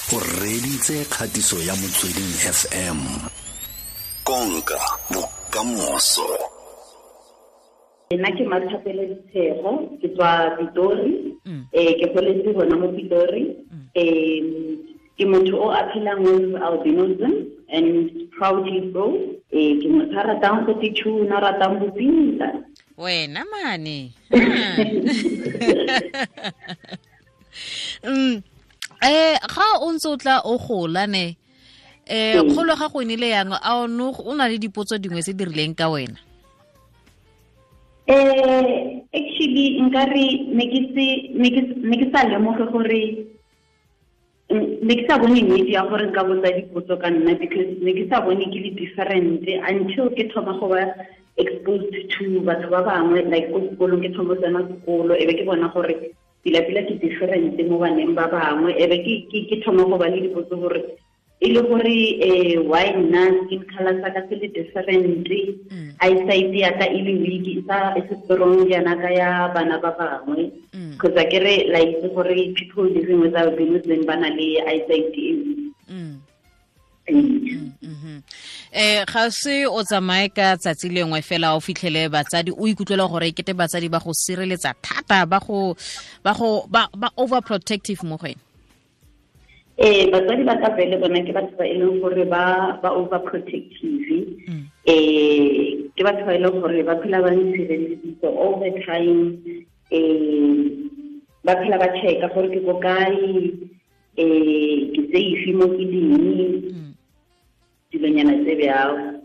O reditse kgatiso ya Motsweding FM. Konka bokamoso. Nna ke Mathapelo Ditshego, ke tswa Pitori. Ke goletse gona mo Pitori. Ke motho o a phelang with albinism and proudly so. Ke motho a ratang go titšhuna, ratang go pinta. Wena mane. Ga o ntse o tla o gola ne, kgolo ga go nile yang a o no o na le dipotso dingwe tse di rileng ka wena? Actually nkare ne ke se ne ke sa lemoge gore ne ke sa bone nnete ya gore nka botsa dipotso ka nna, because ne ke sa bone ke le different until ke thoma go ba exposed to batho ba bangwe, like ko sekolong ke thoma tsena sekolo, e be ke bona gore pila-pila ke different mo baneng ba bangwe, e be ke thoma go ba le dipotso gore e le gore why nna skin color sa ka se le different, eyesight ya ka e le weak, e sa e se strong jaana ka ya bana ba bangwe, because a ke re la itse gore people living with albinism ba na le eyesight e weak. Ga se o tsamaye ka tsatsi lengwe fela o fitlhele batsadi o ikutlwela gore kete batsadi ba go sireletsa thata, ba go ba go ba ba overprotective mo go wena? Batsadi ba ka vele bona ke batho ba e leng gore ba overprotective. Ke batho ba e leng gore ba phela ba ntshireleditse all the time. Ba phela ba checka gore ke ko kae, ke safe mo ke leng, dilonyana tse bjalo.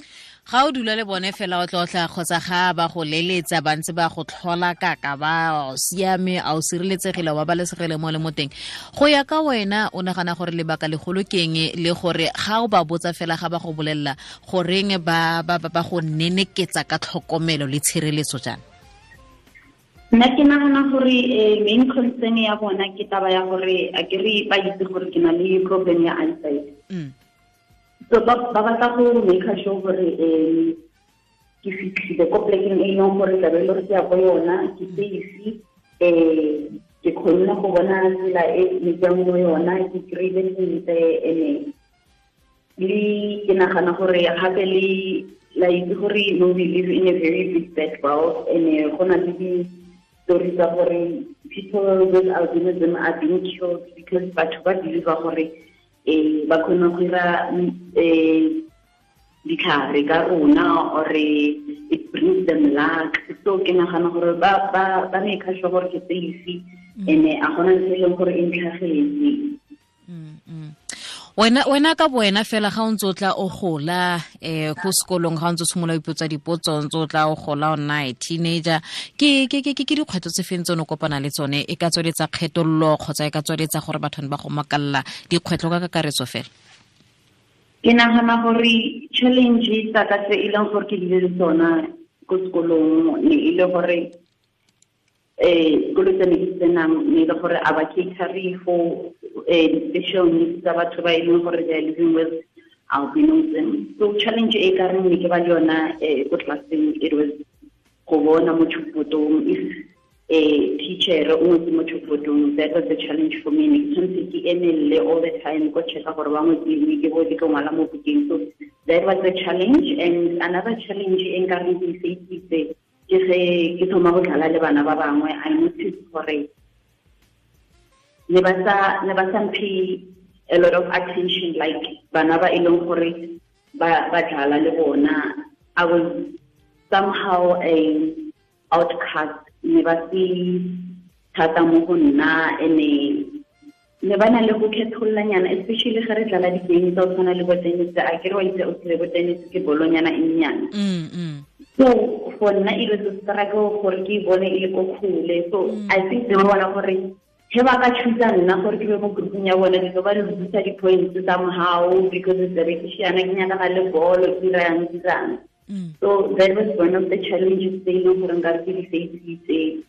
Ga o dula le bone fela o tlotla kgotsa ga ba go leletsa ba ntse ba go tlhola kaka ba siame, a o sireletsegile, wa babalesegile mo le mo teng. Go ya ka wena o nagana gore lebaka legolo ke eng, le gore ga o ba botsa fela ga ba go bolelela goreng ba ba ba go neneketsa ka tlhokomelo le tshireletso jaana? Nna ke nagana gore main concern ya bona ke taba ya gore a ke re ba itse gore ke na le problem ya eyesight. So ba batla go make sure gore ke fitlhile ko plekeng e leng gore tlabe e le gore ke ya ko yona, ke safe, ke kgonne go bona tsela e ne ke yang mo yona, ke kry-ile sentle. Ene le ke nagana gore gape le la itse gore no, we live in a very big bad world, and go na le di-story tsa gore people with albinism are being killed because batho ba believe gore ba kgone go ira ditlhare ka rona, or it brings them luck. So ke nagana gore ba ba ba make sure gore ke safe, ene a gona ntho e leng gore e ntlhagetse. Wena ka boena fela ga o ntse o tla o gola ko sekolong, ga o ntse o simolola o ipotsa dipotso, o ntse o tla o gola o nna a teenager, ke dikgwetlho tse feng tse o ne o kopana le tsone? E ka tsweletsa kgethololo kgotsa e ka tsweletsa gore batho ba go makalla, dikgwetlho ka kakaretso fela? Ke nagana gore challenge tsa ka tse e leng gore ke bile le tsona ko sekolong ne e le gore sekolo tse ne ke tsenang ne e le gore a ba cater for di-special needs tsa batho ba e leng gore they are living with albinism. So challenge e ka reng ne ke ba le yona ko classeng, it was go bona mo chalkboardong if teacher o ngwetse mo chalkboardong. That was the challenge for me. Ne ke tshwanetse ke emelele all the time ko checka gore ba ngwetse eng, ke bo ke tlo ngwala mo bukeng. So that was the challenge. And another challenge e nka reng ke e face-itse ke ge ke thoma go dlala le bana ba bangwe, I noticed gore ne ba sa mphe a lot of attention like bana ba e leng gore ba dlala le bona. I was somehow a outcast, ne ba se thata mo go nna, ene ne ba na le go kgethollanyana, especially ge re dlala di-game tsa go tshwana le bo tennis. A ke re wa itse o tsile bo tennis ke bolonyana e nnyane. So for nna e was a struggle gore ke bone e le ko kgole. So I think they bona gore he ba ka choose nna gore ke be mo grouping ya bona, di ba lose di-points somehow because it's a ke shiana ke nyakana le bolo, ke dirang dirang. So that was one of the challenges tse e leng gore nka ke di face-itse.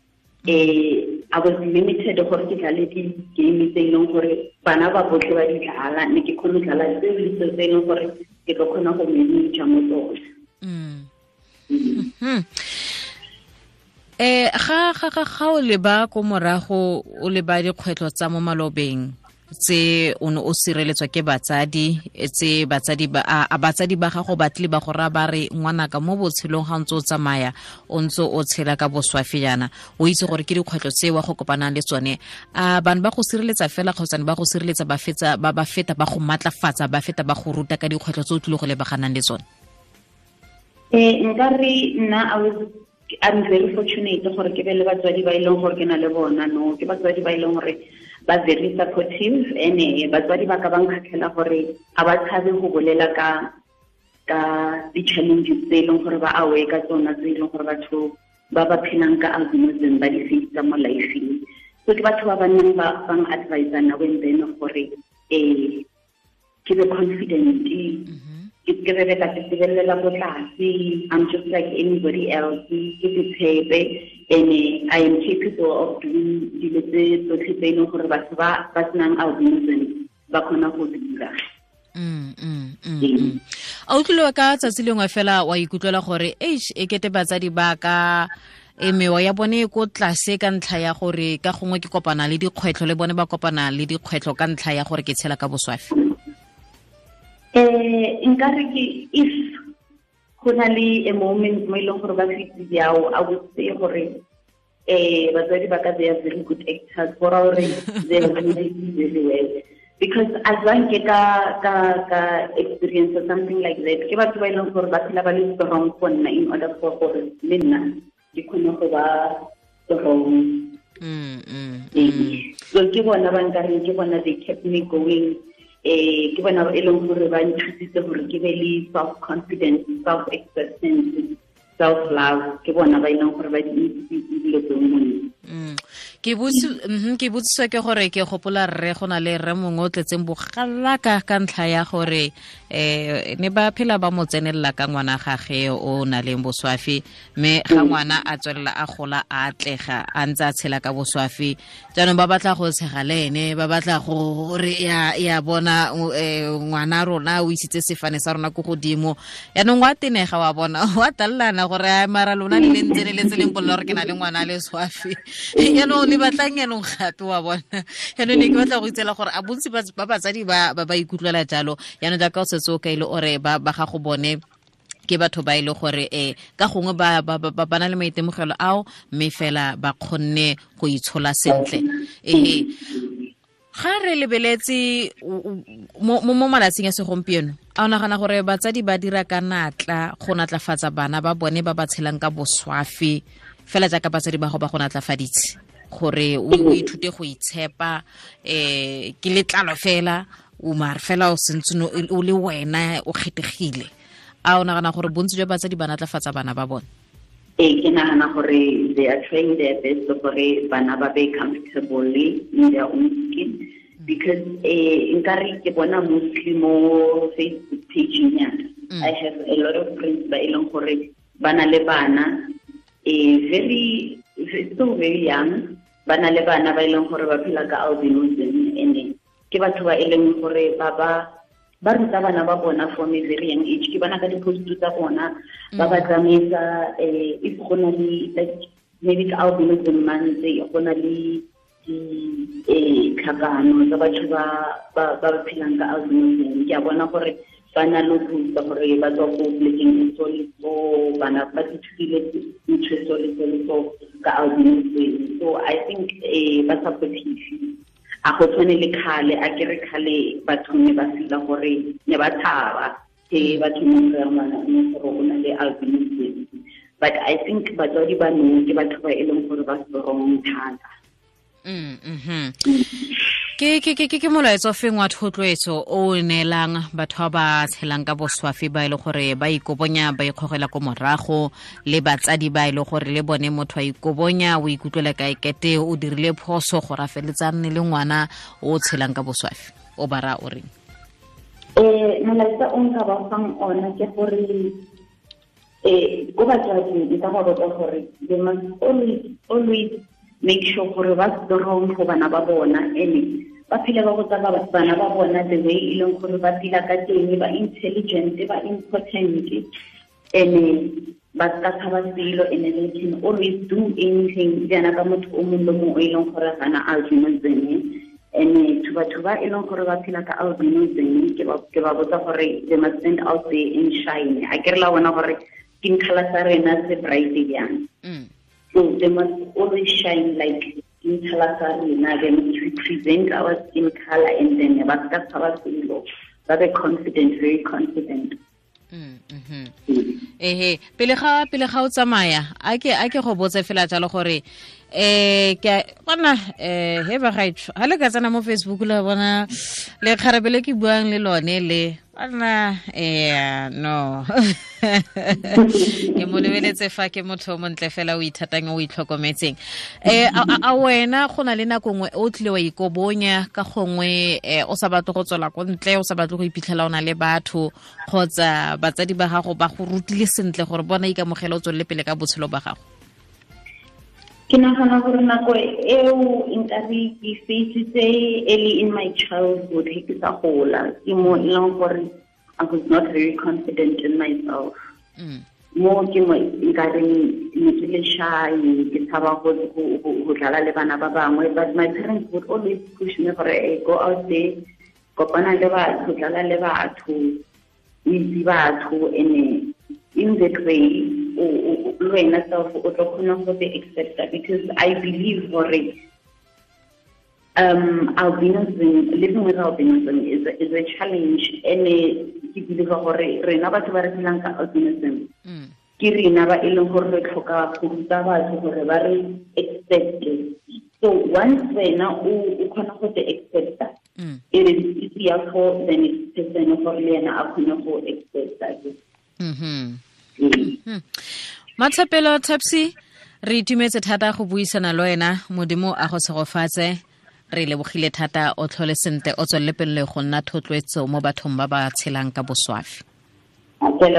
I was limited gore ke dlale di-game tse e leng gore bana ba botlhe ba di dlala, ne ke kgone go dlala tseo le tseo tse e leng gore ke tlo kgona go manage mo tsone. Ga o leba ko morago, o leba dikgwetlho tsa mo malobeng Tse o ne o sireletswa ke batsadi, tse batsadi ba a batsadi ba gago ba tle ba go ra ba re ngwanaka mo botshelong ga ntse o tsamaya o ntse o tshela ka boswafi jaana, o itse gore ke dikgwetlho tse wa go kopanang le tsone. A bana ba go sireletsa fela kgotsa ba go sireletsa ba fetsa ba feta ba go matlafatsa, ba feta ba go ruta ka dikgwetlho tse o tlile go lebaganang le tsone? Nka re nna I'm very fortunate gore ke be le batswadi ba e leng gore ke na le bona, no ke batswadi ba e leng gore ba very supportive, ene batswadi ba ka ba nkgatlhela gore ga ba tshabe go bolela ka di-challenges tse e leng gore ba aware ka tsona, tse e leng gore batho ba ba phelang ka albinism ba di face mo life-eng. So ke batho ba ba nnang ba advise now and then gore ke be confident, ke be ka tsebelela ko tlase, I'm just like anybody else, ke tshepe, and I am capable of doing dilo tse tsotlhe tse e leng gore batho ba ba senang albinism ba kgona go dira. A utlwile ka tsatsi lengwe fela wa ikutlwela gore eish, e kete batsadi ba ka mewa ya bone e ko tlase ka ntlha ya gore ka gongwe ke kopana le dikgwetlho, le bone ba kopana le dikgwetlho ka ntlha ya gore ke tshela ka boswafi? Nka re ke if go na le a moment mo e leng gore ba fitse jao, I would say gore batswadi ba ka they are very good actors, go raya gore they are doing very well, because as long ke ka experience or something like that, ke batho ba e leng gore ba phela ba le strong for nna in order for gore le nna ke kgone go ba strong. So ke bona ba nkareng, ke bona they kept me going. Ke bona e leng gore ba nthusitse gore ke be le self confidence, self acceptance, self love. Ke bona ba e leng gore ba di dilo tseo mo nna. Ke botsiswa ke gore ke gopola rre, go na le rre mongwe o tletseng bogalaka ka ntlha ya gore ne ba phela ba mo tsenelela ka ngwana gage o na leng boswafi, mme ga ngwana a tswelela a gola a atlega a ntse a tshela ka boswafi, jaanong ba batla go tshega le ene, ba batla gore ya bona ngwana rona o isitse sefane sa rona ko godimo, yaanong wa tenega wa bona wa tallana gore mara lona le ntse le letse leng polela gore ke na le ngwana le swafi, yaanong le batlang yaanong gape wa bona. Yaanong ne ke batla go itsela gore a bontsi ba batsadi ba ba ikutlwela jalo, yaanong jaaka o setse o kaile ore ba gago bone ke batho ba ile gore ka gongwe ba ba na le maitemogelo ao, mme fela ba kgonne go itshola sentle. Ga re lebeletse mo malatsing a segompieno, a o nagana gore batsadi ba dira ka natla go natlafatsa bana ba bone ba ba tshelang ka boswafi fela jaaka batsadi ba go ba go natlafaditse gore o ithute go itshepa, ke letlalo fela o mare fela o sentse o le wena o kgethegile? A o nagana gore bontsi jwa batsadi ba natlafatsa bana ba bone? Ke nagana gore they are trying their best gore bana ba be comfortable in their own skin, because nkare ke bona mostly mo Facebook page ya I have a lot of friends ba e leng gore ba na le bana very so very young, ba na le bana ba e leng gore ba phela ka albinism, and ke batho ba e leng gore ba ba ruta bana ba bona from a very young age. Ke bona ka di-post tsa bona ba ba tsamaisa, if go na le like maybe ka albinism month go na le ditlhakano tsa batho ba ba phelang ka albinism, ke a bona gore ba na le ruta gore ba tswa ko polekeng e so le so, bana ba ithutile ntho e so le so le so ka albinism. So I think ba supportive. A go tshwane le kgale, a kere kgale batho ne ba fila gore ne ba tshaba ke batho mo go ngwana gore o na le albinism, but I think batswadi ba nou ke batho ba e leng gore ba strong thata. Ke molaetsa o feng wa thotloetso o neelang batho ba ba tshelang ka boswafi ba e le gore ba ikobonya ba ikgogela ko morago, le batsadi ba e le gore le bone motho a ikobonya o ikutlwela ka ekete o dirile phoso gore a feletse a nne le ngwana o tshelang ka boswafi, o ba raya o reng? Molaetsa o nka ba fang ona ke gore ko batswading nka ba botsa gore they must always make sure gore ba strong go bana ba bona, ene ba phele ba botsa bana ba bona the way e leng gore ba phela ka teng, ba intelligent, ba important, ene ba ka tshaba selo, ene they can always do anything jaana ka motho o mongwe le mongwe o e leng gore ga na albinism. And to batho ba e leng gore ba phela ka albinism, ke ba botsa gore they must stand out there and shine. A ke re la bona gore skin color sa rena se bright jang. So they must always shine like skin color sa rena. They must represent our skin color, and then ba ska tshaba selo. Ba be confident, very confident. Ehe, pele ga o tsamaya, a ke go botse fela jalo gore ke bona he ba gaetsho ha le ka tsena mo Facebook la bona le kgarabele ke buang le lone le bona no ke mo lebeletse fa ke motho o montle fela o ithatang o itlhokometseng. A wena go na le nako nngwe o tlile wa ikobonya ka gongwe o sa batle go tswela ko ntle, o sa batle go iphitlhela o na le batho, kgotsa batsadi ba gago ba go rutile sentle gore bona ikamogela o tswelele pele ka botshelo ba gago? Ke nagana gore nako eo nkabe ke faisitse early in my childhood, he ke sa gola, ke mo e leng gore I was not very confident in myself. Mo ke mo nkareng ne ke le shy, ke tshaba go dlala le bana ba bangwe, but my parents would always push me gore go out there, kopana le batho, dlala le batho, o itse batho, and in that way le wena self o tlo kgona go te accepta, because I believe gore albinism, living with albinism is a challenge, and ke believe gore rena batho ba re phelang ka albinism ke rena ba e leng gore re tlhoka go ruta batho gore ba re accepte. So once wena o kgona go te accepta, it is easier for the next person gore le ena a kgone go accepta. Mathapelo Tapsi, re itumetse thata go buisana le wena. Modimo a go tshegofatse, re lebogile thata, o tlhole sentle, o tswelele pele go nna thotloetso mo bathong ba ba tshelang ka boswafi. Re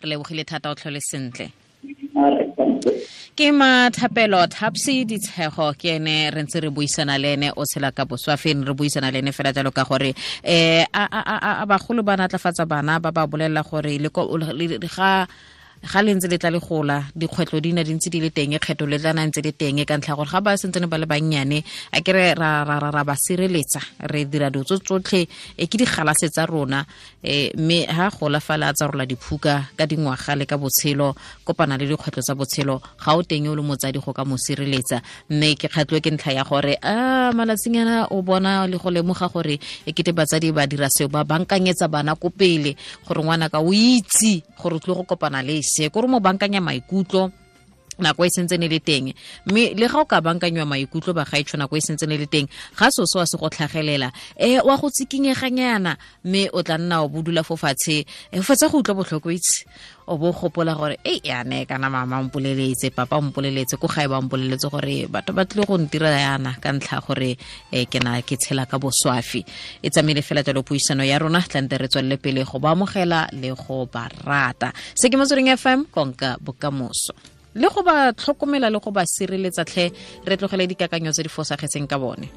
lebogile thata, o tlhole sentle. Ke Mathapelo Tapsi Ditshego, ke ene re ntse re buisana le ene, o tshela ka boswafi, re buisana le ene fela jalo ka gore a bagolo ba natlafatsa bana ba ba bolelela gore le ga le ntse le tla le gola, dikgwetlho di na di ntse di le teng, kgetho le tla na ntse le teng, ka ntlha gore ga ba sentse ba le bannyane, a ke re ra ba sireletsa, re dira dilo tsotlhe ke digalase tsa rona, mme ha gola fala a tsa rola diphuka ka dingwaga le ka botshelo, kopana le dikgwetlho tsa botshelo, ga o teng o le motsadi go ka mo sireletsa. Mme ke kgatlwe ke ntlha ya gore a malatsing ana o bona le go lemoga gore e kete batsadi ba dira seo, ba bankanyetsa bana ko pele gore ngwana ka o itse gore o tlile go kopana le se, gore mo bankanya maikutlo nako e sentse ne le teng. Mme le ga o ka bankanywa maikutlo ba gaetsho nako e sentse ne le teng, ga so se wa se go tlhagelela, wa go tsikinyeganyana, mme o tla nna o bodula fo fatshe, o fetsa go utlwa botlhoko itse, o bo gopola gore e yane kana mama mpoleletse, papa mpoleletse, ko gae ba mpoleletse gore batho ba tlile go ntira yana ka ntlha gore ke na ke tshela ka boswafi. E tsamaile fela jalo puisano ya rona, tlante re tswelele pele go ba amogela le go ba rata. Se ke Motsweding FM, konka bokamoso, le go ba tlhokomela le go ba sireletsa tlhe, re tlogele dikakanyo tse di fosagetseng ka bone.